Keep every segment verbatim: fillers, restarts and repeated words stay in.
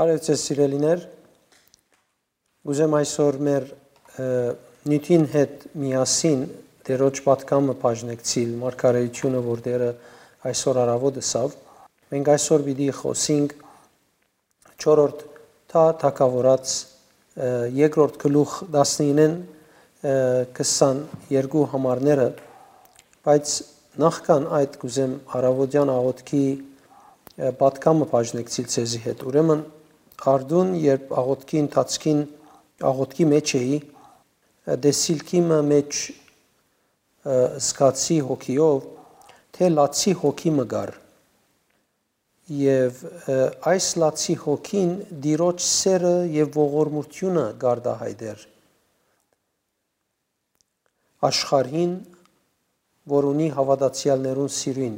Բարև ձեզ, սիրելիներ։ Կ'ուզեմ այսօր մեր, ը, նիւթին հետ միասին Տէրոջ պատգամը բաժնեկցիլ, մարգարեութիւնը, որ Տէրը այսօր առաւօտ ըսաւ։ Մենք այսօր պիտի խօսինք չորրորդ թա թագաւորաց, ը, երկրորդ գլուխ տասնինեն, ը, քսաներկու համարները, բայց նախքան այդ կ'ուզեմ առաւոտեան աղօթքի, ը, պատգամը բաժնեկցիլ ձեզի հետ։ Ուրեմն, արդուն, երբ աղօթքի ընթացքին, աղօթքի մեջ էի, ը, տեսիլքի մը մեջ, ը, զգացի հոգիով, թէ լացի հոգի մը կար։ Եւ, ը, այս լացի հոգին Տիրոջ սէրը եւ ողորմութիւնը կ'արտայայտէր աշխարհին, որ ունի հաւատացեալներուն սիրոյն։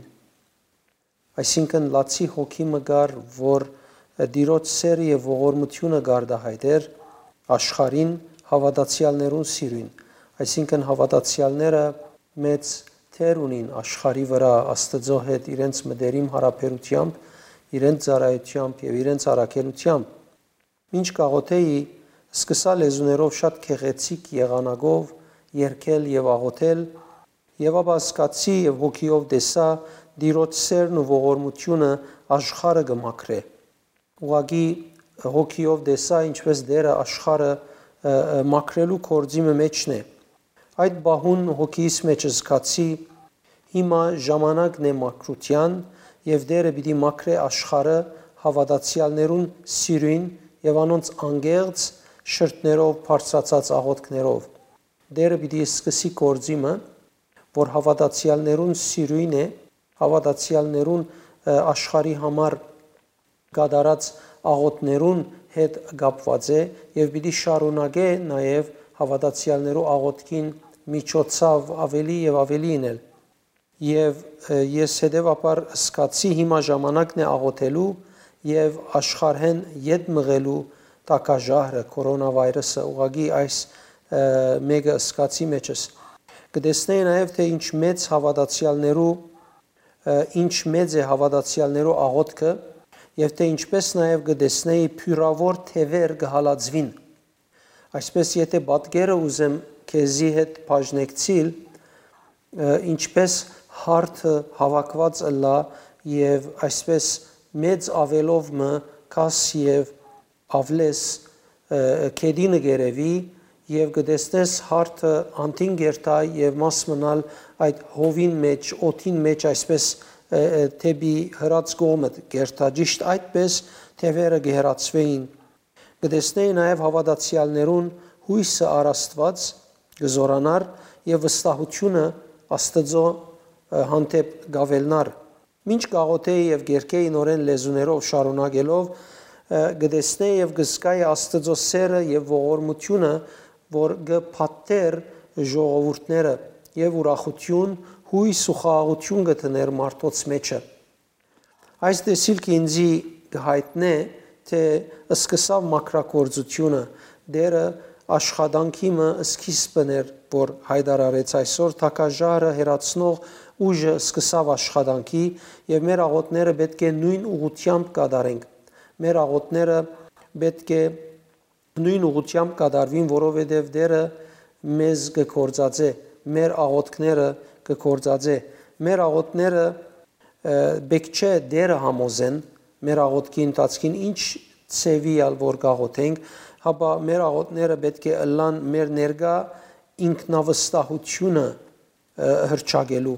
Այսինքն, լացի հոգի մը կար, որ, ը, Տիրոջ սէրը եւ ողորմութիւնը կ'արտայայտէր աշխարհին, հաւատացեալներուն սիրոյն։ Այսինքն, հաւատացեալները մեծ դեր ունին աշխարհի վրայ Աստուծոյ հետ իրենց մտերիմ յարաբերութեամբ, իրենց ծառայութեամբ եւ իրենց առաքելութեամբ։ Մինչ կ'աղօթէի, սկսայ լեզուներով շատ գեղեցիկ եղանակով երգել եւ աղօթել, եւ ապա զգացի եւ հոգիով տեսայ Տիրոջ սէրն ու ողորմութիւնը աշխարհը կը մաքրէ։ Ուղղակի հոգիով տեսայ, ինչպէս Տէրը աշխարհը, ը, ը, մաքրելու գործի մը մէջն է։ Այդ պահուն հոգիս մէջ զգացի, հիմա ժամանակն է մաքրութեան, եւ Տէրը պիտի մաքրէ աշխարհը հաւատացեալներուն սիրոյն եւ անոնց անկեղծ շրթներով, բարձրացած աղօթքներով։ Տէրը պիտի սկսի գործի մը, որ հաւատացեալներուն սիրոյն է, հաւատացեալներուն, ը, աշխարհի համար կատարած աղօթներուն հետ կապուած է եւ պիտի շարունակէ նաեւ հաւատացեալներու աղօթքին միջոցաւ աւելի եւ աւելի ինել։ Եւ, ը, ես հետեւաբար զգացի, հիմա ժամանակն է աղօթելու եւ աշխարհէն ետ մղելու տակաժահրը, կորոնավայրուսը, ուղղակի այս, ը, մէկը զգացի մեջս։ Կը տեսնէի նաեւ, թէ ինչ մեծ հաւատացեալներու, ը, ինչ մեծ է հաւատացեալներու աղօթքը եւ թէ ինչպէս նաեւ կը տեսնէի բիւրաւոր թեւեր կը հալածուին։ Այսպէս, եթէ պատկերը ուզեմ քեզի հետ բաժնեկցիլ, ը, ինչպէս հարթը հաւաքուած ըլլայ եւ այսպէս մեծ աւելով մը գաս եւ աւլես, ը, գետինը կ'երեւի եւ կը տեսնես հարթը անդին կ'երթայ եւ մաս մնալ այդ հովին մէջ, օդին մէջ, այսպէս, ը, ը, դէպի հրաց կողմը կ'երթայ։ Ճիշդ այդպէս թեւերը կը հեռացուէին։ Կը տեսնէի նաեւ հաւատացեալներուն յոյսը առ Աստուած կը զօրանար եւ վստահութիւնը Աստուծոյ, ը, հանդէպ կ'աւելնար։ Մինչ կ'աղօթէի եւ կ'երգէի նորէն լեզուներով շարունակելով, ը, կը տեսնէի եւ կը զգայի Աստուծոյ սէրը եւ ողորմութիւնը, որ կը փաթթէր ժողովուրդները եւ ուրախութիւն, յոյս ու խաղաղութիւն կը դներ մարդոց մէջը։ Այս տեսիլքը ինծի կը յայտնէ, թէ սկսաւ մաքրագործութիւնը, Տէրը աշխատանքի մը սկիզբն էր, որ յայտարարեց այսօր, թակաժարը հեռացնող ուժը սկսաւ աշխատանքի եւ մեր աղօթները պէտք է նոյն ուղղութեամբ կատարենք։ Մեր աղօթները պէտք է նոյն ուղղութեամբ կատարուին, որովհետեւ Տէրը մեզ կը գործածէ, մեր աղօթքները կը գործածէ։ Մեր աղօթները, ը, պէտք չէ Տէրը համոզեն, մեր աղօթքի ընթացքին ինչ ձեւի ալ որ կաղոթենք, հապա մեր աղօթները պէտք է ըլլան մեր ներկայ ինքնավստահութիւնը, ը, հռչակելու։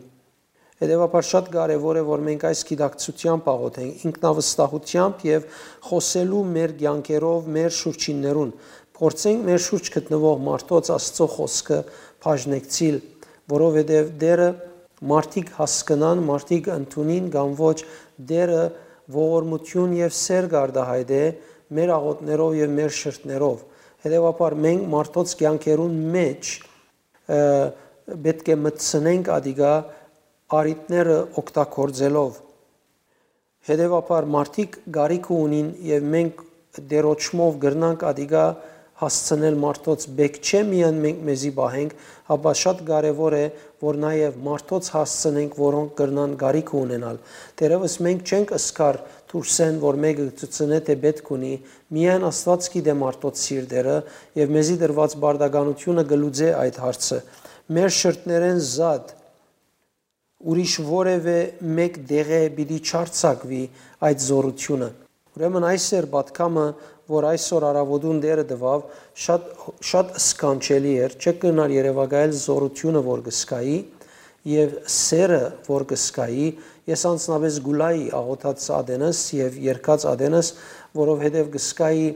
Հետեւաբար շատ կարեւոր է, որ մենք այս գիտակցութեամբ աղոթենք, ինքնավստահութեամբ եւ խօսելու մեր կեանքերով մեր շուրջիններուն։ Փորձենք մեր շուրջ գտնուող մարդոց Աստուծոյ խօսքը բաժնեկցիլ, որովհետեւ Տէրը մարդիկ հասկնան, մարդիկ ընդունին կամ ոչ, Տէրը ողորմութիւն եւ սէր կ'արտայայտէ մեր աղօթներով եւ մեր շրթներով։ Հետեւաբար մենք մարդոց կեանքերուն մէջ, ը, պէտք է մտցնենք ատիկա առիթները օգտագործելով։ Հետեւաբար մարդիկ կարիքը ունին եւ մենք Տէրոջմով կրնանք ատիկա հասցնել մարդոց, պէտք չէ միայն մենք մեզի պահենք, հապա շատ կարեւոր է, որ նաեւ մարդոց հասցնենք, որոնք կրնան կարիքը ունենալ։ Թերեւս մենք չենք ըսկար դուրսէն որ մէկը կը ցցնէ թէ պէտք ունի, միայն Աստուած գիտէ մարդոց սիրտերը եւ մեզի տրուած պարտականութիւնը կը լուծէ այդ հարցը։ Մեր շրթներէն զատ ուրիշ որեւէ մէկ տեղէ պիտի չարձակուի այդ զօրութիւնը։ Ուրեմն այս էր պատգամը, որ այսօր առաւօտուն Տէրը տուաւ, շատ, շատ սքանչելի էր, չէ՞ կրնար երեւակայել զօրութիւնը որ կը զգայի եւ սերը որ կը զգայի, ես անձնապէս կ'ուլայի աղօթած ատենս եւ երգած ատենս, որովհետեւ կը զգայի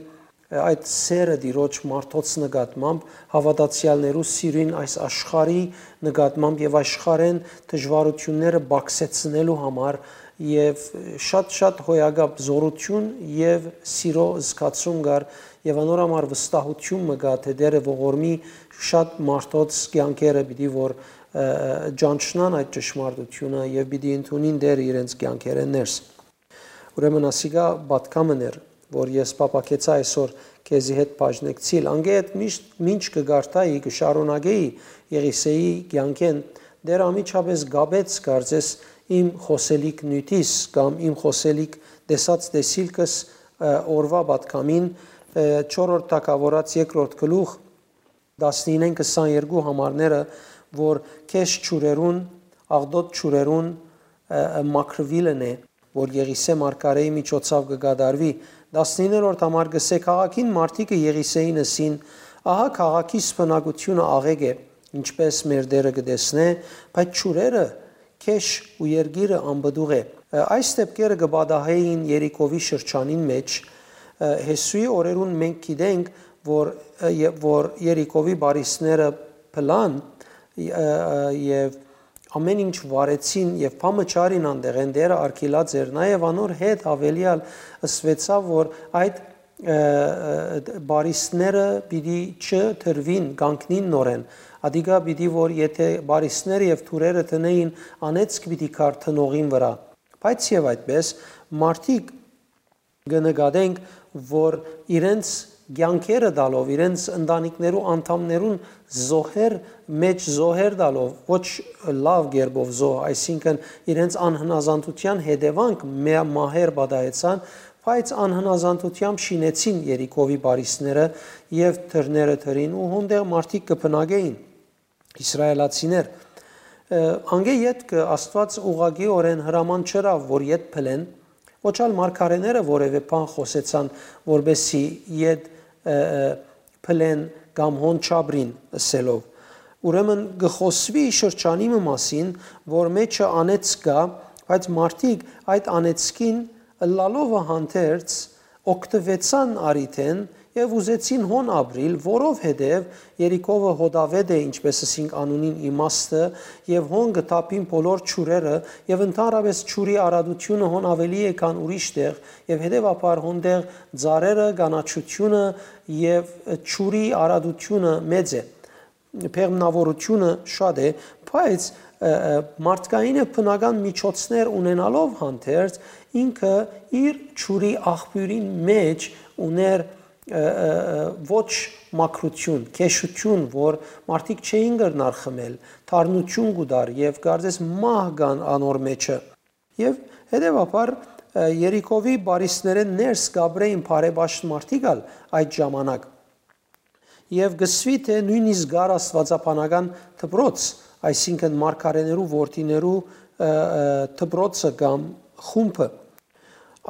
այդ սերը Տիրոջ մարդոց նկատմամբ, հաւատացեալներու սիրոյն այս աշխարհի նկատմամբ եւ աշխարհէն դժուարութիւնները պակսեցնելու համար եւ շատ-շատ հոյակապ զօրութիւն եւ սիրո զգացում կար եւ անոր համար վստահութիւն մը կայ թէ Տէրը ողորմի շատ մարդոց կեանքերը պիտի որ, ը, ճանչնան այդ ճշմարտութիւնը եւ պիտի ընդունին Տէրը իրենց կեանքերէն ներս։ Ուրեմն ասիկա պատգամն էր, որ ես փափաքեցայ այսօր քեզի հետ բաժնեկցիլ։ Անկէ հետ միշտ մինչ կը կարդայի, կը շարունակեի Եղիսեի կեանքէն, Տէր անմիջապէս կապեց կարծես իմ խօսելիք նիւթիս կամ իմ խօսելիք տեսած տեսիլքս, ը, օրուայ պատգամին, ը, չորրորդ թագաւորաց երկրորդ գլուխ, տասնինէն քսաներկու համարները, որ քեշ ջուրերուն, աղտոտ ջուրերուն, ը, ը, մաքրուիլն է, որ Եղիսէ մարգարէի միջոցաւ կը կատարուի։ Տասնիններորդ համար կ'ըսէ. «Քաղաքին մարդիկը Եղիսէին ըսին. "Ահա քաղաքիս բնակութիւնը աղէկ է, ինչպէս մեր Տէրը կը տեսնէ, բայց ջուրերը քեշ ու երկիրը անպտուղ է"։ Ը, այս դեպքերը կը պատահէին Երիքովի շրջանին մէջ։ Ը, Յիսուի օրերուն մենք գիտենք, որ, ը, ե-, որ Երիքովի բարիսները փլան, ը, ը, եւ ամէն ինչ վարեցին եւ փամը չարին անտեղէն, Տէրը արգիլած էր, նաեւ անոր հետ աւելեալ ըսուեցաւ, որ այդ, ը, ը, բարիսները պիտի չդրուին, կանգնին նորեն։ Ադիկա պիտի որ եթե բարիսները եւ թուրերը դնէին, անեծք պիտի գար տնողին վրայ։ Բայց եւ այդպես, մարդիկ կը նկատենք, որ իրենց կեանքերը տալով, իրենց ընտանիքներու անդամներուն զոհեր մէջ զոհեր տալով, ոչ լաւ կերպով զոհ, այսինքն իրենց անհնազանդութեան հետեւանք մե-, մահեր պատահեցան, բայց անհնազանդութեամբ շինեցին Երիքովի բարիսները եւ թուրերը թրին ու հոնդեղ մարդիկ կը բնակէին, իսրայելացիներ։ Ը, անկէ ետքը Աստուած ուղղակիօրէն հրաման չըրաւ, որ ետ փլեն, ոչ ալ մարգարէները որեւէ բան խօսեցան, որպեսզի ետ, ը, ը, փլեն կամ հոն չապրին ըսելով։ Ուրեմն կը խօսուի շրջանի մը մասին, որ մեջը անեծք կայ, բայց մարդիկ այդ անեծքին ըլլալովը հանդերձ օգտուեցան առիթէն եւ ուզեցին հոն ապրիլ, որովհետեւ Երիքովը հոտաւէտ է, ինչպես ըսինք անունին իմաստը, եւ հոն կը թափին բոլոր ջուրերը, եւ ընդհանրապես ջուրի արատությունը հոն աւելի է, քան ուրիշ տեղ, եւ հետեւաբար հոնդեղ ծառերը, կանաչութիւնը եւ ջուրի արատությունը մեծ է, բեղմնաւորությունը շատ է, բայց, ը, ը, մարդկային եւ բնական միջոցներ ունենալով հանդերձ, ինքը իր ջուրի աղբիւրին մէջ ուներ, ը, ը, ը, ոչ մաքրութիւն, քեշութիւն, որ մարդիկ չէին կրնար խմել, թարնություն կու տար եւ կարծես մահ կան անոր մեջը։ Եւ հետեւաբար, ը, Երիքովի բարիսներէն ներս կապրէին բարեպաշտ մարդիկ ալ այդ ժամանակ։ Եւ կսուի թէ նոյնիսկ կար աստուածաբանական դպրոց, այսինքն մարգարեներու որդիներու, ը, ը, դպրոցը կամ խումբը։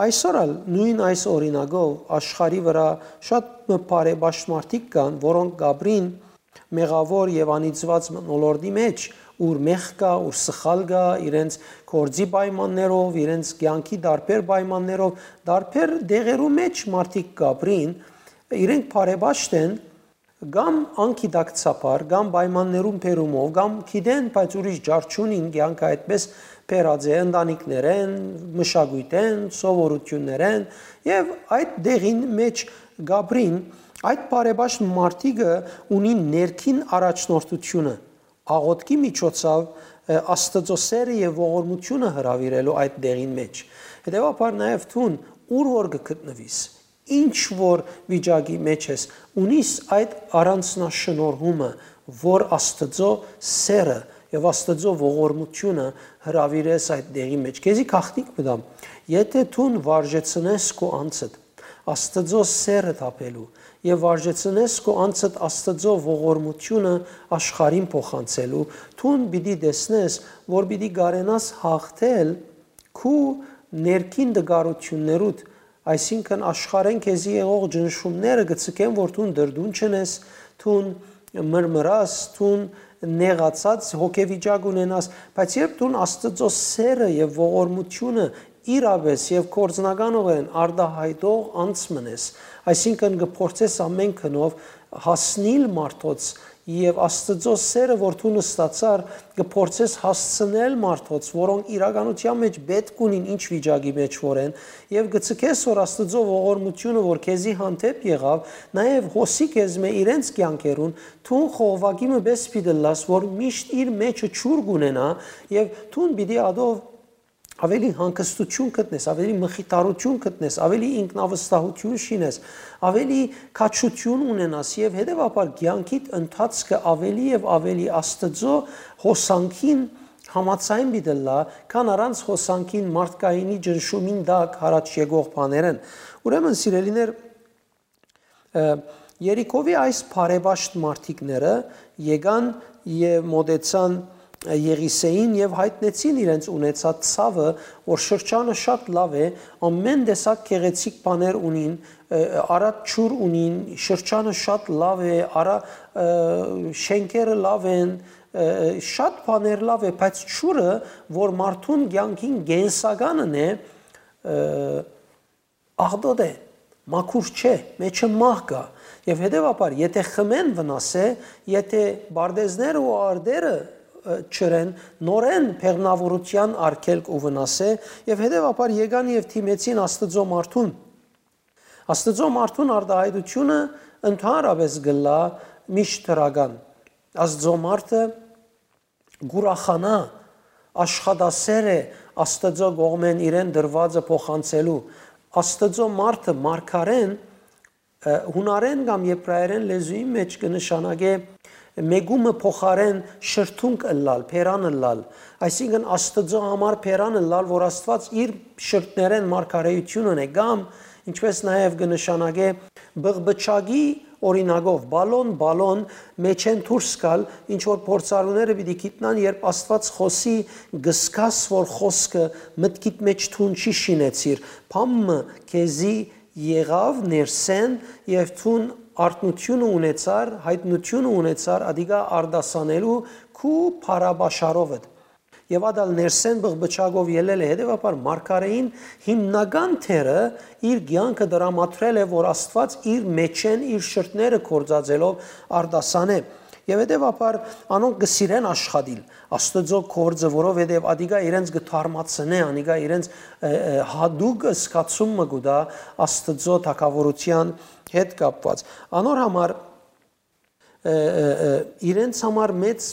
Այսօր ալ նոյն այս օրինակով աշխարհի վրայ շատ մը բարեպաշտ մարդիկ կան, որոնք կապրին մեղաւոր եւ անիծուած մթնոլորտի մէջ, ուր մեղք կայ, ուր սխալ կայ, իրենց գործի պայմաններով, իրենց կեանքի տարբեր պայմաններով, տարբեր դեղերու մէջ մարդիկ կապրին, իրենք բարեպաշտ են, կամ անգիտակցաբար, կամ պայմաններուն բերումով, կամ գիտեն, բայց ուրիշ ջար չունին, կեանքը այդպես բերած է ընտանիքներեն, մշակոյթեն, սովորութիւններեն, եւ այդ դեղին մէջ կապրին, այդ բարեպաշտ մարդիկը ունին ներքին առաջնորդությունը, աղօթքի միջոցով, ը, Աստուծոյ սերը եւ ողորմությունը հրաւիրելու այդ դեղին մէջ։ Հետեւաբար նաեւ դուն, ուր որ կը գտնուիս, ինչ որ վիճակի մէջ ես, ունիս այդ առանձնաշնորհումը, որ Աստուծոյ սերը եւ Աստուծոյ ողորմութիւնը հրաւիրես այդ դեղի մէջ։ Քեզի գաղտնիք մտամ, եթէ դուն վարժեցնես քու անձդ Աստուծոյ սէրը թափելու եւ վարժեցնես քու անձդ Աստուծոյ ողորմութիւնը աշխարհին փոխանցելու, դուն պիտի տեսնես, որ պիտի կարենաս հաղթել քու ներքին տկարութիւններուդ, այսինքն աշխարհէն քեզի եղող ճնշումները կը ձգեն, որ դուն դրդուն չնես, դուն մրմրաս, դուն նեղացած հոգեվիճակ ունենաս, բայց երբ դուն Աստուծոյ սէրը եւ ողորմութիւնը իրապէս եւ գործնականօրէն արտայայտող անձ մնես, այսինքն կը փորձես ամէն գնով հասնիլ մարդոց եւ Աստուծոյ սէրը, որ դու նստացար, կը փորձես հասցնել մարդոց, որոնք իրականութեան մէջ պէտք ունին ինչ վիճակի մէջ որ են, եւ կը ձգես, որ Աստուծոյ ողորմութիւնը, որ քեզի հանդէպ եղաւ, նաեւ հոսի քեզմէ իրենց կեանքերուն, դուն խողովակի մը պէս պիտի ըլլաս, որ միշտ իր մէջը ջուր կունենայ եւ դուն պիտի ատով ավելի հանգստութիւն գտնես, ավելի մխիթարութիւն գտնես, ավելի ինքնավստահութիւն շինես, ավելի քաջութիւն ունենաս եւ հետեւաբար կեանքիդ ընթացքը ավելի եւ ավելի Աստուծոյ հոսանքին համաձայն պիտի ըլլայ, քան առանց հոսանքին մարդկայինի ճնշումին տակ յառաջ եկող բաներէն։ Ուրեմն, սիրելիներ, Երիքովի այս բարեպաշտ մարդիկները եկան եւ մօտեցան Եղիսէին եւ յայտնեցին իրենց ունեցած ցաւը, որ շրջանը շատ լաւ է, ամէն տեսակ գեղեցիկ բաներ ունին, արատ ջուր ունին, շրջանը շատ լաւ է, արա, շենքերը լաւ են, շատ բաներ լաւ է, բայց ջուրը, որ մարդուն կեանքին կենսականն է, աղտոտ է, մաքուր չէ, մէջը մահ կայ։ Եւ հետեւաբար, եթէ խմեն վնաս է, եթէ պարտեզները ու արտերը ը, չըրեն, նորէն բեղմնաւորութեան արգելք ու վնաս է, եւ հետեւաբար եկան եւ դիմեցին Աստուծոյ մարդուն։ Աստուծոյ մարդուն արտայայտութիւնը ընդհանրապէս կ'ըլլայ միշտ դրական։ Աստուծոյ մարդը կ'ուրախանայ, աշխատասէր է Աստուծոյ կողմէն իրեն տրուածը փոխանցելու։ Աստուծոյ մարդը մարգարէն, ը, յունարէն կամ եբրայերէն լեզուին մէջ կը նշանակէ մեկումը փոխարէն շրթունք ըլլալ, բերան ըլլալ, այսինքն Աստուծոյ համար բերան ըլլալ, որ Աստուած իր շրթներէն մարգարէութիւն ընէ, կամ, ինչպէս նաեւ կը նշանակէ, բղբչակի օրինակով, բալոն, բալոն, մէջէն դուրս գալ, ինչ որ փորձառուները պիտի գիտնան, երբ Աստուած խօսի, կ'զգաս, որ խօսքը մտքիդ մէջ դուն չի շինեցիր, բան մը քեզի եղաւ ներսէն եւ դուն արթնությունը ունեցար, յայտնությունը ունեցար, ադիկա արտասանելու քու փառաբաշարովդ։ Եւ ատալ ներսէն բղբչակով ելել է, հետեւաբար մարգարէին հիմնական դերը իր կեանքը դրամատրել է, որ Աստուած իր մէջէն, իր շրթները գործածելով արտասանէ։ Եւ հետեւաբար անոնք կը սիրեն աշխատիլ Աստուծոյ գործը, որովհետեւ ադիկա իրենց կը թարմացնէ, անիկա իրենց, ը, ը, յատուկ զգացում մը կու տայ Աստուծոյ թագաւորութեան հետ կապուած։ Անոր համար, ը, ը, ը, իրենց համար մեծ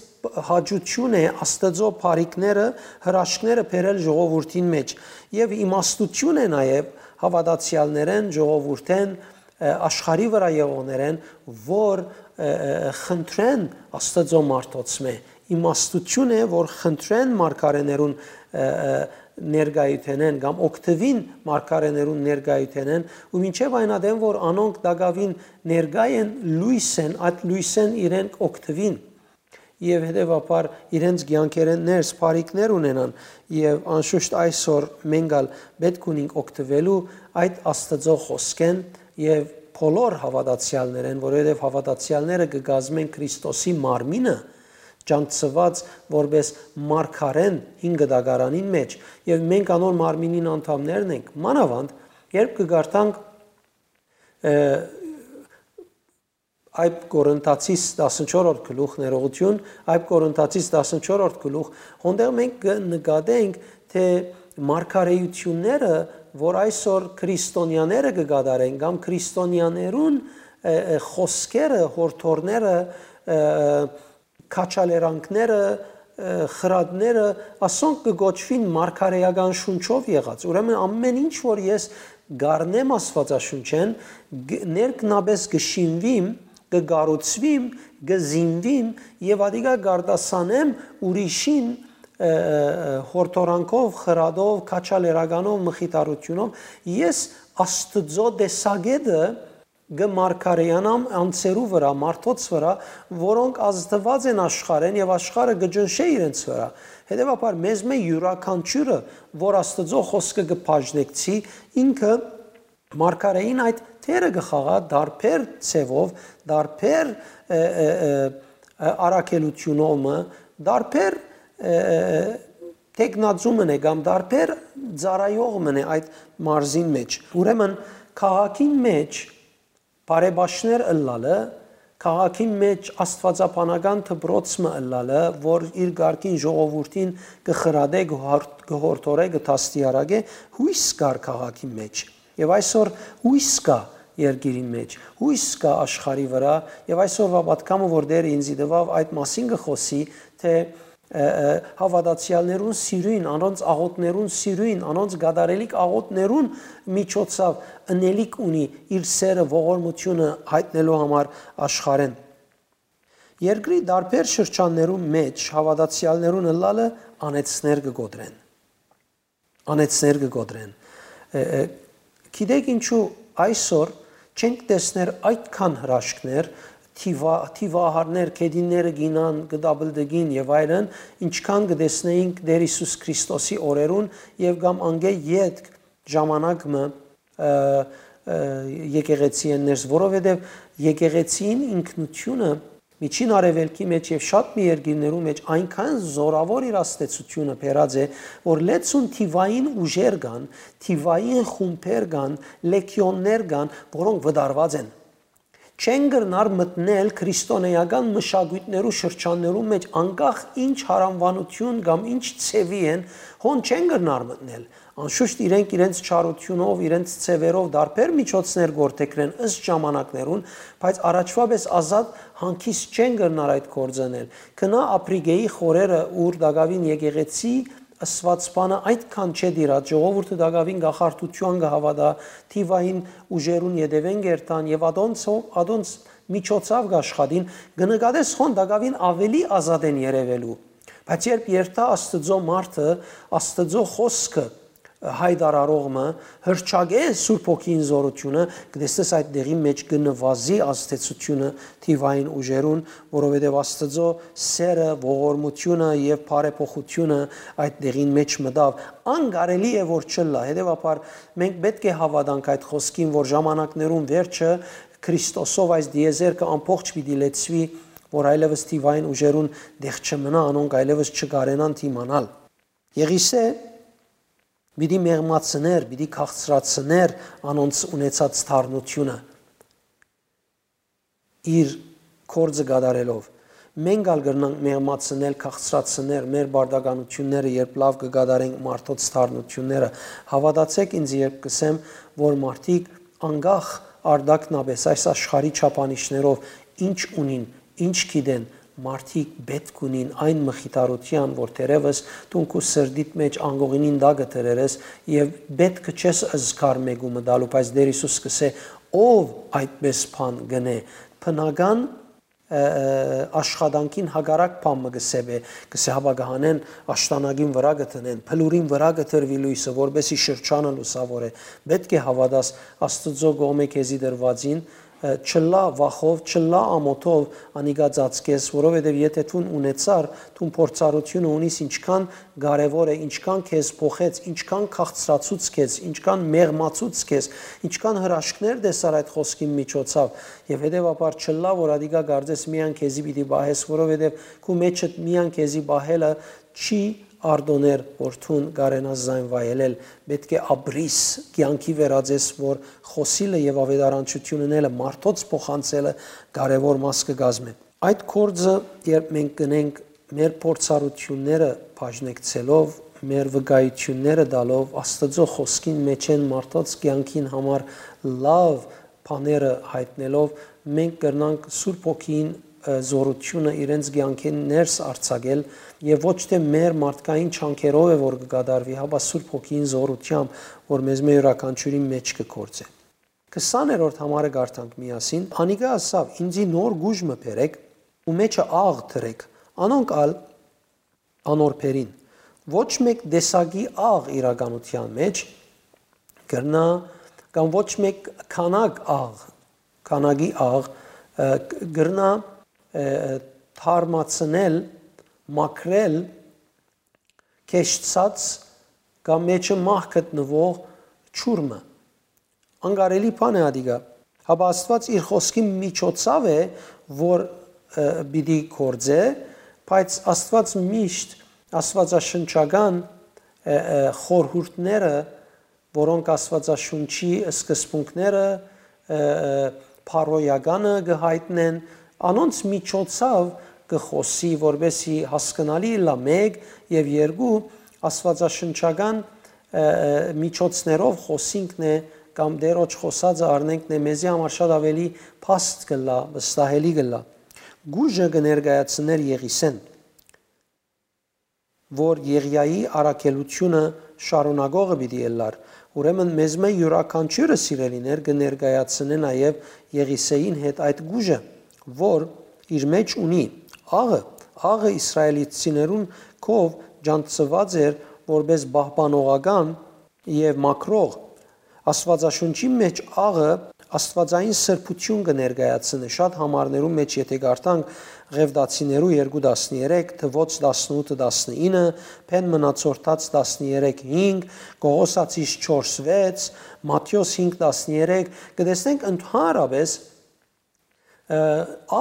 հաճութիւն է Աստուծոյ բարիքները, հրաշքները բերել ժողովուրդին մէջ։ Եւ իմաստութիւն է նաեւ հաւատացեալներէն, ժողովուրդէն, ը, աշխարհի վրայ եղողներէն, որ, ը, ը, խնդրեն Աստուծոյ մարդոցմէ, իմաստութիւն է, որ խնդրեն մարգարէներուն, ը, ը, ներկայութենէն կամ օգտուին մարգարէներուն ներկայութենէն, ու մինչեւ այն ատեն, որ անոնք տակաւին ներկայ են, լոյս են, այդ լոյսէն իրենք օգտուին եւ հետեւաբար իրենց կեանքերէն ներս բարիքներ ունենան, եւ անշուշտ այսօր մենք ալ պէտք ունենք օգտուելու այդ Աստուծոյ խօսքէն եւ բոլոր հաւատացեալներէն, որովհետեւ հաւատացեալները կը կազմեն Քրիստոսի մարմինը, ճանչցուած որպէս մարգարէն հին կտակարանին մէջ, եւ մենք անոր մարմինին անդամներն ենք, մանաւանդ, երբ կը կարդանք, ը, Այբ Կորինթացիս տասնչորրորդ գլուխ, ներողություն, Այբ Կորինթացիս տասնչորրորդ գլուխ, հոնդեղ մենք կը նկատենք, թէ մարգարէութիւնները, որ այսօր քրիստոնյաները կը կատարեն, կամ քրիստոնյաներուն, ը, ը, խօսքերը, յորդորները, ը, քաջալերանքները, ը, խրատները, ասոնք կը կոչուին մարգարէական շունչով եղած։ Ուրեմն ամէն ինչ, որ ես կառնեմ Աստուածաշունչէն, г-, ներքնաբէս կը շինվիմ կը կառուցուիմ, կը զինուիմ եւ ատիկա կ'արտասանեմ ուրիշին, ը, ը, ը, յորդորանքով, խրատով, քաջալերականով, մխիթարութիւնով։ Ես Աստուծոյ տեսակէտը կը մարգարեանամ անձերու վրայ, մարդոց վրայ, որոնք ազդուած են աշխարհէն եւ աշխարհը կը ճնշէ իրենց վրայ։ Հետեւաբար, մեզմէ իւրաքանչիւրը, որ Աստուծոյ խօսքը կը բաժնեկցի, ինքը մարգարէին այդ դերը կը խաղայ դարբեր ձեւով, դարբեր, ը, ը, ը, ը, առաքելութիւնով մը, դարբեր, ը, ը, ը, թեկնածու մըն է կամ դարբեր ծառայող մըն է այդ մարզին մէջ։ Ուրեմն, քաղաքին մէջ բարեբաշխներ ըլլալը, քաղաքին մէջ աստուածաբանական դպրոց մը ըլլալը, որ իր կարգին ժողովուրդին կը խրատէ, կը հոր-, կը յորդորէ, կը դաստիարակէ, յոյս կար քաղաքին մէջ։ Եւ այսօր յոյս կայ երկիրին մէջ, յոյս կայ աշխարհի վրայ, եւ այսօրուա պատգամը, որ Տէրը ինծի տուաւ, այդ մասին կը խօսի, թէ, ը, ը, հաւատացեալներուն սիրոյն, անոնց աղօթքներուն սիրոյն, անոնց կատարելիք աղօթքներուն միջոցաւ ընելիք ունի իր սերը, ողորմութիւնը յայտնելու համար աշխարհէն։ Երկրի տարբեր շրջաններու մէջ հաւատացեալներուն ըլլալը անեցներ կը կոտրեն։ Անեցներ կը կոտրեն։ Ը, ը, գիտեք ինչու այսօր չենք տեսներ այդքան հրաշքներ, թիվա-, թիվահարներ, գետինները գինան, կը տապլտկին եւ այլն, ինչքան կը տեսնէինք Տէր Յիսուս Քրիստոսի օրերուն եւ կամ անկէ ետք ժամանակ մը, ը, ը, եկեղեցի են ներս, որովհետեւ եկեղեցին ինքնութիւնը Միջին Արեւելքի մէջ եւ շատ մի երկիրներու մէջ այնքան զօրաւոր իր ազդեցութիւնը բերած է, որ լեցուն թիվային ուժեր կան, թիվային խումբեր կան, լեգիոններ կան, որոնք վտարուած են։ Չեն կրնար մտնել քրիստոնեական մշակոյթներու շրջաններու մէջ, անկախ ինչ յարամուանութիւն կամ ինչ ձեւի են, հոն չեն կրնար մտնել։ Անշուշտ իրենք իրենց չարութիւնով, իրենց ձեւերով տարբեր միջոցներ գործեքրեն ըստ ժամանակներուն, բայց առաջուայ պէս ազատ հանգիստ չեն կրնար այդ գործը ընել։ Գնա Ափրիկէի խորերը, ուր տակաւին եկեղեցի ըսուած բանը այդքան չէ տիրած, ժողովուրդը տակաւին կախարդութեան կը հաւատայ, թիվային ուժերուն ետեւէն կ'երթան եւ ատոնցով, ատոնց միջոցաւ կ'աշխատին, կը նկատես հոն տակաւին աւելի ազատ են երեւելու։ Բայց երբ երթայ Աստուծոյ մարդը, Աստուծոյ խօսքը յայտարարող մը, հրճակէ Սուրբ Հոգին զօրութիւնը, կը տեսնես այդ դեղին մէջ կը նուազի ազդեցութիւնը թիվային ուժերուն, որովհետեւ Աստուծոյ սերը, ողորմութիւնը եւ բարեփոխութիւնը այդ դեղին մէջ մտաւ։ Անկարելի է որ չըլլայ։ Հետեւաբար մենք պէտք է հաւատանք այդ խօսքին, որ ժամանակներուն վերջը Քրիստոսով այս տիեզերքը ամբողջ պիտի լեցուի, որ այլեւս թիվային ուժերուն տեղ չմնայ, անոնք այլեւս չկարենան դիմանալ։ Եղիսէ պիտի մեղմացներ, պիտի քաղցրացներ անոնց ունեցած դառնութիւնը իր գործը կատարելով։ Մենք ալ կրնանք մեղմացնել, քաղցրացնել մեր պարտականութիւնները, երբ լաւ կը կատարենք մարդոց դառնութիւնները։ Հաւատացէք ինձ, երբ կ'ըսեմ, որ մարդիկ անկախ արտակնապէս այս աշխարհի չափանիշներով ինչ ունին, ինչ գիտեն, մարդիկ պէտք ունին այն մխիթարութեան, որ թերեւս դուն քու սրտիդ մէջ անկողինին տակը դրեր ես եւ պէտքը չես զգար մէկու մը տալու, բայց Տէր Յիսուս կ'ըսէ, ով այդպէս բան կ'ընէ, բնական, ը, ը, աշխատանքին հակառակ բան մը կը սեպէ, կ'ըսէ, հապա կը հանեն աշտանակին վրայ կը դնեն, բլուրին վրայ կը դրուի լոյսը, որպէսզի շրջանը լուսաւորէ։ Պէտք է հաւատաս Աստուծոյ կողմէ քեզի տրուածին, ը, չըլլայ վախով, չըլլայ ամօթով անիկա ծածկես, որովհետեւ եթէ դուն ունեցար, դուն փորձառութիւնը ունիս, ինչքան կարեւոր է, ինչքան քեզ փոխեց, ինչքան քաղցրացուց քեզ, ինչքան մեղմացուց քեզ, ինչքան հրաշքներ տեսար այդ խօսքին միջոցով, եւ հետեւաբար չըլլայ, որ ատիկա կարծես միայն քեզի պիտի պահես, որովհետեւ քու մեջդ միայն քեզի պահելը չի արտոներ, որ դուն կարենաս զայն վայելել, պէտք է ապրիս, կեանքի վերածես, որ խօսիլը եւ աւետարանչութիւնն ելը մարդոց փոխանցելը կարեւոր մաս կը կազմէ։ Այդ գործը, երբ մենք կ'ընենք մեր փորձառութիւնները բաժնեկցելով, մեր վկայութիւնները տալով, Աստուծոյ խօսքին մէջէն մարդոց կեանքին համար լաւ բաները յայտնելով, մենք կրնանք Սուրբ Հոգին, ը, զօրութիւնը իրենց կեանքէն ներս արձակել եւ ոչ թէ մեր մարդկային չանքերով է, որ կը կատարուի, հապա Սուրբ Հոգին զօրութեամբ, որ մեզմէ իւրաքանչիւրին մէջ կը գործէ։ Քսաներորդ համարը կարդանք միասին։ Անիկա ըսաւ. «Ինծի նոր գուժ մը բերէք ու մեջը աղ դրէք»։ Անոնք ալ անոր բերին։ Ոչ մէկ տեսակի աղ իրականութեան մէջ կրնայ, կամ ոչ մէկ քանակ աղ, քանակի աղ, ը, կրնայ, ը, թարմացնել, մաքրել քեշցած կամ մեջը մահ գտնուող ջուր մը։ Անկարելի բան է ատիկա։ Հապա Աստուած իր խօսքի միջոցաւ է, որ, ը, պիտի գործէ, բայց Աստուած միշտ աստուածաշնչական, ը, ը, խորհուրդները, որոնք Աստուածաշունչի սկզբունքները, ը, ը, բարոյականը կը յայտնեն, անոնց միջոցաւ կը խօսի, որպեսզի հասկնալի ըլլայ, մէկ, եւ երկու, աստուածաշնչական, ը, ը, միջոցներով խօսինքն է, կամ Տէրոջ խօսածը առնենքն է, մեզի համար շատ աւելի փաստ կ'ըլլայ, վստահելի կ'ըլլայ։ Գուժը կը ներկայացնէր Եղիսէն, որ Եղիայի առաքելութիւնը շարունակողը պիտի ըլլար։ Ուրեմն մեզմէ իւրաքանչիւրը, սիրելիներ, կը ներկայացնէ նաեւ Եղիսէին հետ այդ գուժը, որ իր մէջ ունի աղը։ Աղը իսրայելցիներուն քով ճանչցուած էր որպէս պահպանողական եւ մաքրող։ Աստուածաշունչի մէջ աղը աստուածային սրբութիւն կը ներկայացնէ։ Շատ համարներու մէջ, եթէ կարդանք Ղեւտացիներու երկու տասներեք, Թուոց տասնութը տասնինը, Բեն Մնացորդաց տասներեք հինգ, Կողոսացիս չորս վեց, Մատթէոս հինգ տասներեք, կը տեսնենք ընդհանրապէս, ը,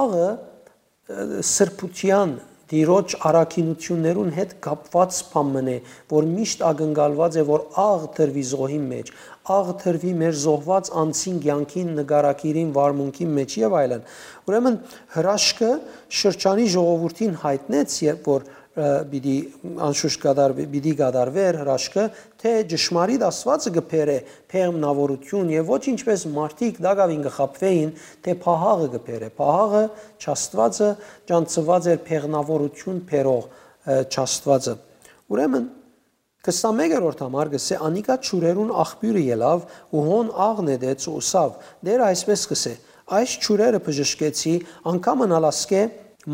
աղը, ը, սրբութեան, Տիրոջ առաքինութիւններուն հետ կապուած բան մըն է, որ միշտ ակնկալուած է, որ աղ դրուի զոհին մէջ, աղ դրուի մեր զոհուած անձին կեանքին, նկարագիրին, վարմունքին մէջ եւ այլն։ Ուրեմն հրաշքը շրջանի ժողովուրդին յայտնեց, երբ որ, ը, պիտի, անշուշտ կատար-, պիտի կատարվեր հրաշքը, թէ ճշմարիտ Աստուածը կը բերէ բեղմնաւորութիւն եւ ոչ ինչպէս մարդիկ տակաւին կը խաբուէին, թէ փահաղը կը բերէ։ Փահաղը, չաստուածը, ճանչցուած էր բեղմնաւորութիւն բերող, ը, չաստուածը։ Ուրեմն, քսանմեկերորդ համար կ'ըսէ. «Անիկա ջուրերուն աղբիւրը ելաւ ու հոն աղ նետեց ու ըսաւ. Տէրը այսպէս կ'ըսէ. այս ջուրերը բժշկեցի, անգամ ըլլայ ասկէ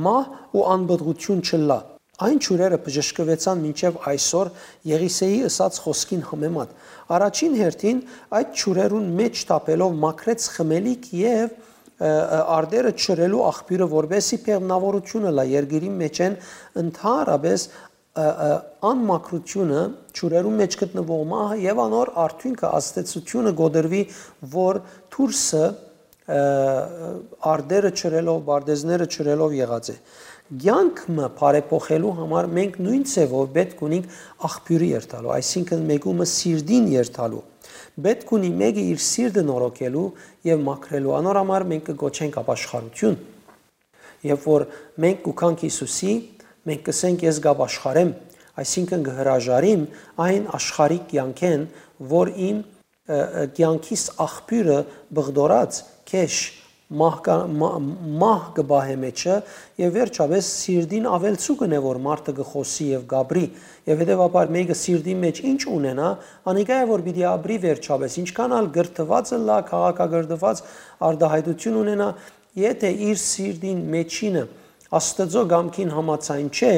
մահ ու անպտղութիւն չըլլայ»։ Այն ջուրերը բժշկուեցան մինչեւ այսօր Եղիսէի ըսած խօսքին համեմատ։ Առաջին հերթին, այդ ջուրերուն մէջ թափելով մաքրեց խմելիք եւ, ը, ը, արտերը չրելու աղբիւրը, որպէսզի բեղմնաւորութիւնը ըլլայ երկիրին մէջէն, ընդհանրապէս, ը, ը, անմաքրութիւնը, ջուրերուն մէջ գտնուող մահը եւ անոր արդիւնքը, ազդեցութիւնը կոտրուի, որ դուրսը, ը, արտերը չրելով, պարտեզները չրելով եղած է։ Կեանք մը բարեփոխելու համար մենք նոյն ձեւով պէտք ունենք աղբիւրը երթալու, այսինքն մէկումը սիրտին երթալու։ Պէտք ունի մէկը իր սիրտը նորոգելու եւ մաքրելու։ Անոր համար մենք կը կոչենք ապաշխարութիւն։ Երբ որ մենք կու գանք Յիսուսի, մենք կ'ըսենք. «Ես կ'ապաշխարեմ», այսինքն կը հրաժարիմ այն աշխարհիկ կեանքէն, որ իմ, ը, ը, կեանքիս աղբիւրը բղդորած, քեշ, մահ կա-, մա-, մահ կը պահէ մեջը, եւ վերջապէս սիրտին աւելցուկն է, որ մարդը կը խօսի եւ կ'ապրի, եւ հետեւաբար մէկը սիրտին մէջ ինչ ունենայ, անիկա է, որ պիտի ապրի վերջապէս, ինչքան ալ կրթուած ըլլայ, քաղաքակրթուած արտայայտութիւն ունենայ, եթէ իր սիրտին մէջինը Աստուծոյ կամքին համաձայն չէ,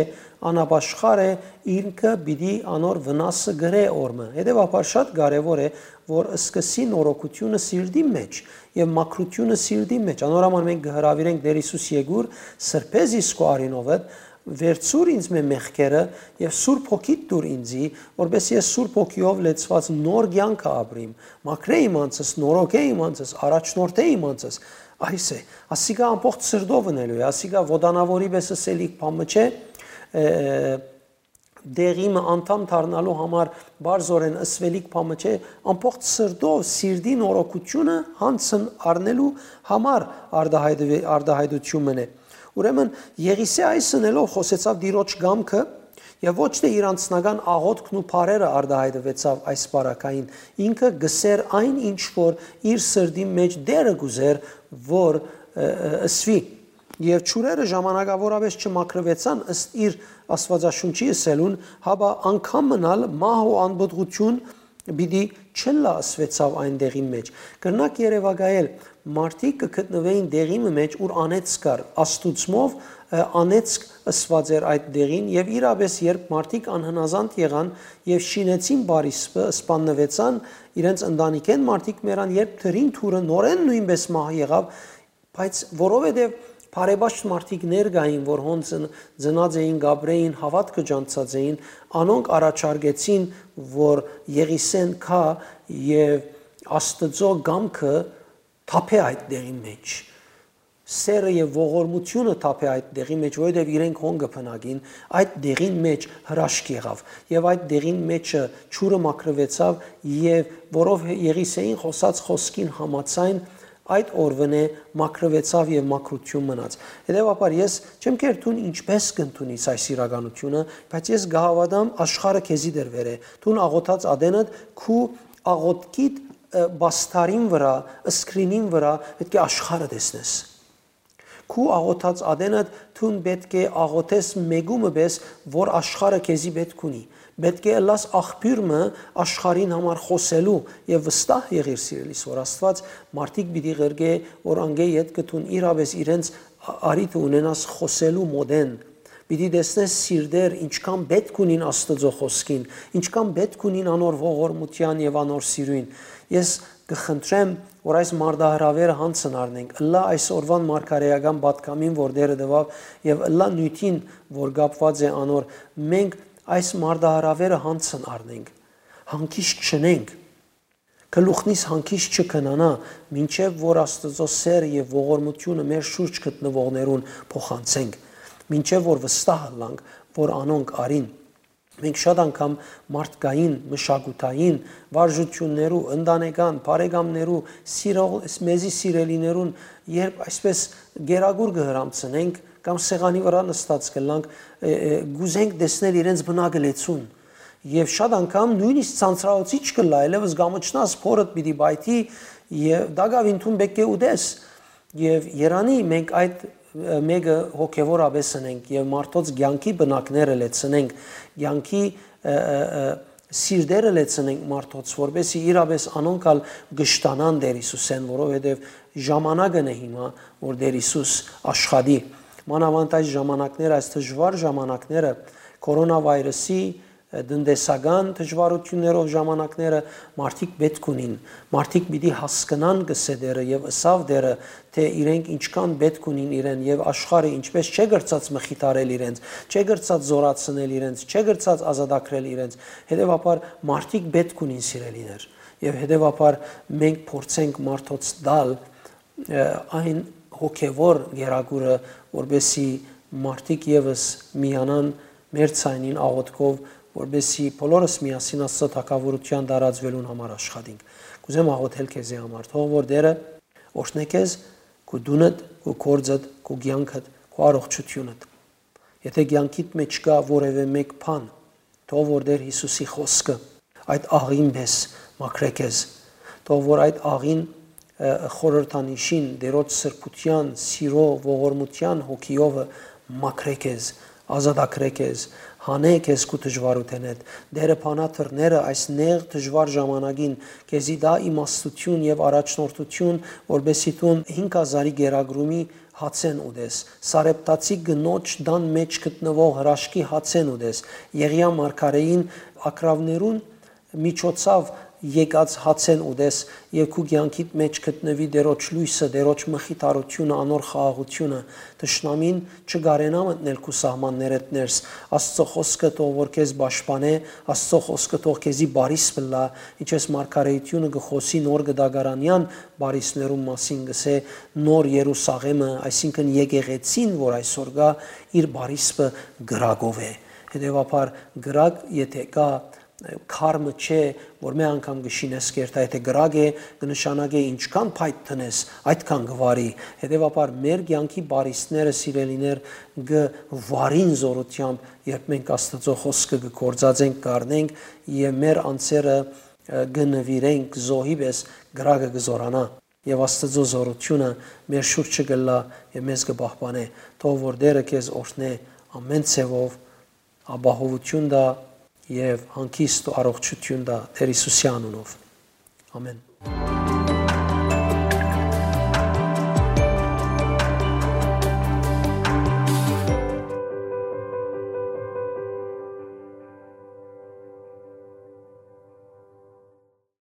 անապաշխար է, ինքը պիտի անոր վնասը կրէ օրմը։ Հետեւաբար շատ կարեւոր է, որ սկսի նորոգութիւնը սիրտի մէջ եւ մաքրութիւնը սիրտի մէջ։ Անոր համար մենք կը հրաւիրենք Տէր Յիսուս, եկուր, սրբէ զիս քու արիւնովդ, վերցուր ինձ մէ մեղքերը եւ Սուրբ Հոգիդ տուր ինձի, որպէս ես Սուրբ Հոգիով լեցուած նոր կեանքը ապրիմ, մաքրէ իմ անձս, նորոգէ իմ անձս, առաջնորդէ իմ անձս։ Այս է, ասիկա ամբողջ սրտով ընելու է, ասիկա ոտանավորի պէս ըսելիք բան մը չէ, ը, դեղի մը անդամ դառնալու համար բարձորեն ըսվելիք բան մը չէ, ամբողջ սրտով սիրտի նորոգութիւնը հանցն առնելու համար արտահայտվի-, արտահայտութիւն մն է։ Ուրեմն Եղիսէ այս ընելով խօսեցաւ Տիրոջ կամքը եւ ոչ թէ իր անձնական աղօթքն ու բառերը արտահայտուեցաւ այս պարագային։ Ինքը կ'ըսէր այն, ինչ որ իր սրտի մէջ Տէրը կ'ուզէր, որ, ը, ը, ըսուի։ Եւ ջուրերը ժամանակաւորապէս չմաքրուեցան ըստ իր Աստուածաշունչի ըսելուն, հապա անգամ մնալ մահ ու անպտղութիւն պիտի չըլլայ ըսուեցաւ այն տեղին մէջ։ Կրնաք երեւակայել, մարդիկ կը գտնուէին տեղի մը մէջ, ուր անեծք կար, աստուծմով, ը, անեծք ըսուած էր այդ տեղին, եւ իրապէս, երբ մարդիկ անհնազանդ եղան եւ շինեցին պարիսպը, սպաննուեցան, իրենց ընտանիքէն մարդիկ մեռան, երբ դրին թուրը նորէն նոյնպէս մահ եղաւ, բայց որովհետեւ բարեպաշտ մարդիկ ներկային, որ հոն ծն-, ծնած էին, կապրէին, հաւատքը ճանչցած էին, անոնք առաջարկեցին, որ Եղիսէն գայ եւ Աստուծոյ կամքը թափէ այդ տեղին մէջ, սէրը եւ ողորմութիւնը թափէ այդ տեղի մէջ, որովհետեւ իրենք հոն կը բնակին, այդ տեղին մէջ հրաշք եղաւ եւ այդ տեղին մէջը ջուրը մաքրուեցաւ եւ որով Եղիսէին խօսած խօսքին համաձայն, այդ օրուընէ մաքրուեցաւ եւ մաքրութիւն մնաց։ Հետեւաբար ես չեմ կեր դուն ինչպէս կ'ընդունիս այս իրականութիւնը, բայց ես կը հաւատամ, աշխարհը քեզի դրուեր է։ Դուն աղօթած ատենդ, քու աղօթքիդ, ը, պաստարին վրայ, screen-ին վրայ պէտք է աշխարհը տեսնես։ Քու աղօթած ատենդ դուն պէտք է աղօթես մեկու մը պէս, որ աշխարհը քեզի պէտք ունի։ Պէտք է ըլլաս աղբիւր մը աշխարհին համար խօսելու եւ վստահ եղիր, սիրելիս, որ Աստուած մարդիկ պիտի ղրկէ, որ անկէ ետքը դուն իրապէս իրենց ա-, առիթը ունենաս խօսելու մօտէն։ Պիտի տեսնես սիրտեր, ինչքան պէտք ունին Աստուծոյ խօսքին, ինչքան պէտք ունին անոր ողորմութեան եւ անոր սիրոյն։ Ես կը խնդրեմ, որ այս մարտահրաւէրը յանցն առնենք, ըլլայ այս օրուան մարգարէական պատգամին, որ Տէրը տուաւ, եւ ըլլայ նիւթին, որ կապուած է անոր, մենք այս մարտահրաւէրը յանցն առնենք, հանգիստ չնենք, գլուխնիս հանգիստ չքնանայ, մինչեւ որ Աստուծոյ սէրը եւ ողորմութիւնը մեր շուրջ գտնուողներուն փոխանցենք, մինչեւ որ վստահ ըլլանք, որ անոնք առին։ Մենք շատ անգամ մարդկային, մշակութային, վարժութիւններու, ընտանեկան, բարեկամներու, սիրող, մեզի սիրելիներուն, երբ այսպէս գերագուր կը հրամցնենք կամ սեղանի վրայ նստած կ'ըլլանք, ը, ը, կ'ուզենք տեսնել իրենց բնակլեցուն։ Եւ շատ անգամ նոյնիսկ ցանցրաոցիչ կ'ըլլայ, այլեւս կ'ամչնաս, փորդ պիտի պայթի, եւ տակաւին դուն պէտք է ուտես։ Եւ երանի մենք այդ, ը, մէկը հոգեւորապէս ընենք եւ մարդոց կեանքի բնակները լեցնենք, կեանքի, ը, ը, ը, սիրտերը լեցնենք մարդոց, որպեսզի իրապէս անոնք ալ կշտանան Տէր Յիսուսէն, որովհետեւ ժամանակն է հիմա, որ Տէր Յիսուս աշխատի։ Մանաւանդ այս ժամանակները, այս դժուար ժամանակները, կորոնավիրուսի, ը, տնտեսական դժուարութիւններով ժամանակները, մարդիկ պէտք ունին, մարդիկ պիտի հասկնան, կ'ըսէ Տէրը, եւ ըսաւ Տէրը, թէ իրենք ինչքան պէտք ունին իրեն, եւ աշխարհը ինչպէս չէ կրցած մխիթարել իրենց, չէ կրցած զօրացնել իրենց, չէ կրցած ազատագրել իրենց, հետեւաբար մարդիկ պէտք ունին, սիրելիներ, եւ հետեւաբար մենք փորձենք մարդոց տալ, ը, այն հոգեւոր գերագուրը, որպեսզի մարդիկ եւս միանան մեր ցայնին աղօթքով, որպեսզի բոլորս միասին Աստծո թագաւորութեան տարածուելուն համար աշխատենք։ Կ'ուզեմ աղօթել քեզի համար, թող որ Տէրը օրհնէ քեզ, քու տունդ, քու գործդ, քու կեանքդ, քու առողջությունդ։ Եթե կեանքիդ մէջ կայ որեւէ մէկ բան, թող որ Տէր Յիսուսի խօսքը այդ աղին պէս մաքրէ քեզ, թող որ այդ աղին, ը, խորհրդանիշին, Տէրոջ սրբութեան, սիրո, ողորմութեան հոգիովը մաքրէ քեզ, ազատագրէ քեզ, հանէ քեզ քու դժուարութենէդ։ Տէրը բանա դռները այս նեղ դժուար ժամանակին, քեզի տայ իմաստութիւն եւ առաջնորդութիւն, որպեսզի դուն հինգ հազարի գերագրումի հացէն ուտես, Սարեպտացի կնոջ տան մէջ գտնուող հրաշքի հացէն ուտես, Եղիա մարգարէին ակռաւներուն միջոցաւ եկած հացէն ուտես եւ քու կեանքիդ մէջ գտնուի Տէրոջ լոյսը, Տէրոջ մխիթարութիւնը, անոր խաղաղութիւնը։ Թշնամին չկարենայ մտնել քու սահմաններէդ ներս։ Աստծո խօսքը թող որ քեզ պաշտպանէ, Աստծո խօսքը թող քեզի բարիս պլա, ինչպես մարգարէությունը կը խօսի նոր գտակարանեան բարիսներուն մասին, կ'ըսէ, նոր Երուսաղէմը, այսինքն եկեղեցին, որ այսօր կայ, իր բարիսպը կրակով է։ Հետեւաբար կրակ, եթե կայ, քարմը չէ, որ մէ անգամ կը շինես կերտայ, եթե կրակ է, կը նշանակէ ինչքան փայտ դնես, այդքան կը վարի։ Հետեւաբար մեր կեանքի բարիսները, սիրելիներ, կը վարին զօրութեամբ, երբ մենք Աստծո խօսքը կը գործածենք, կառնենք եւ մեր անձերը, ը, կը նուիրենք զոհի պէս, կրակը կը զօրանայ։ Եւ Աստծո զօրութիւնը մեր շուրջը կ'ըլլայ եւ մեզ կը պահպանէ։ Թող որ Տէրը քեզ օրհնէ ամէն ձեւով, ապահովութիւն տայ եւ հանգիստ ու առողջութիւն տայ Տէր Յիսուսի անունով։ Ամէն։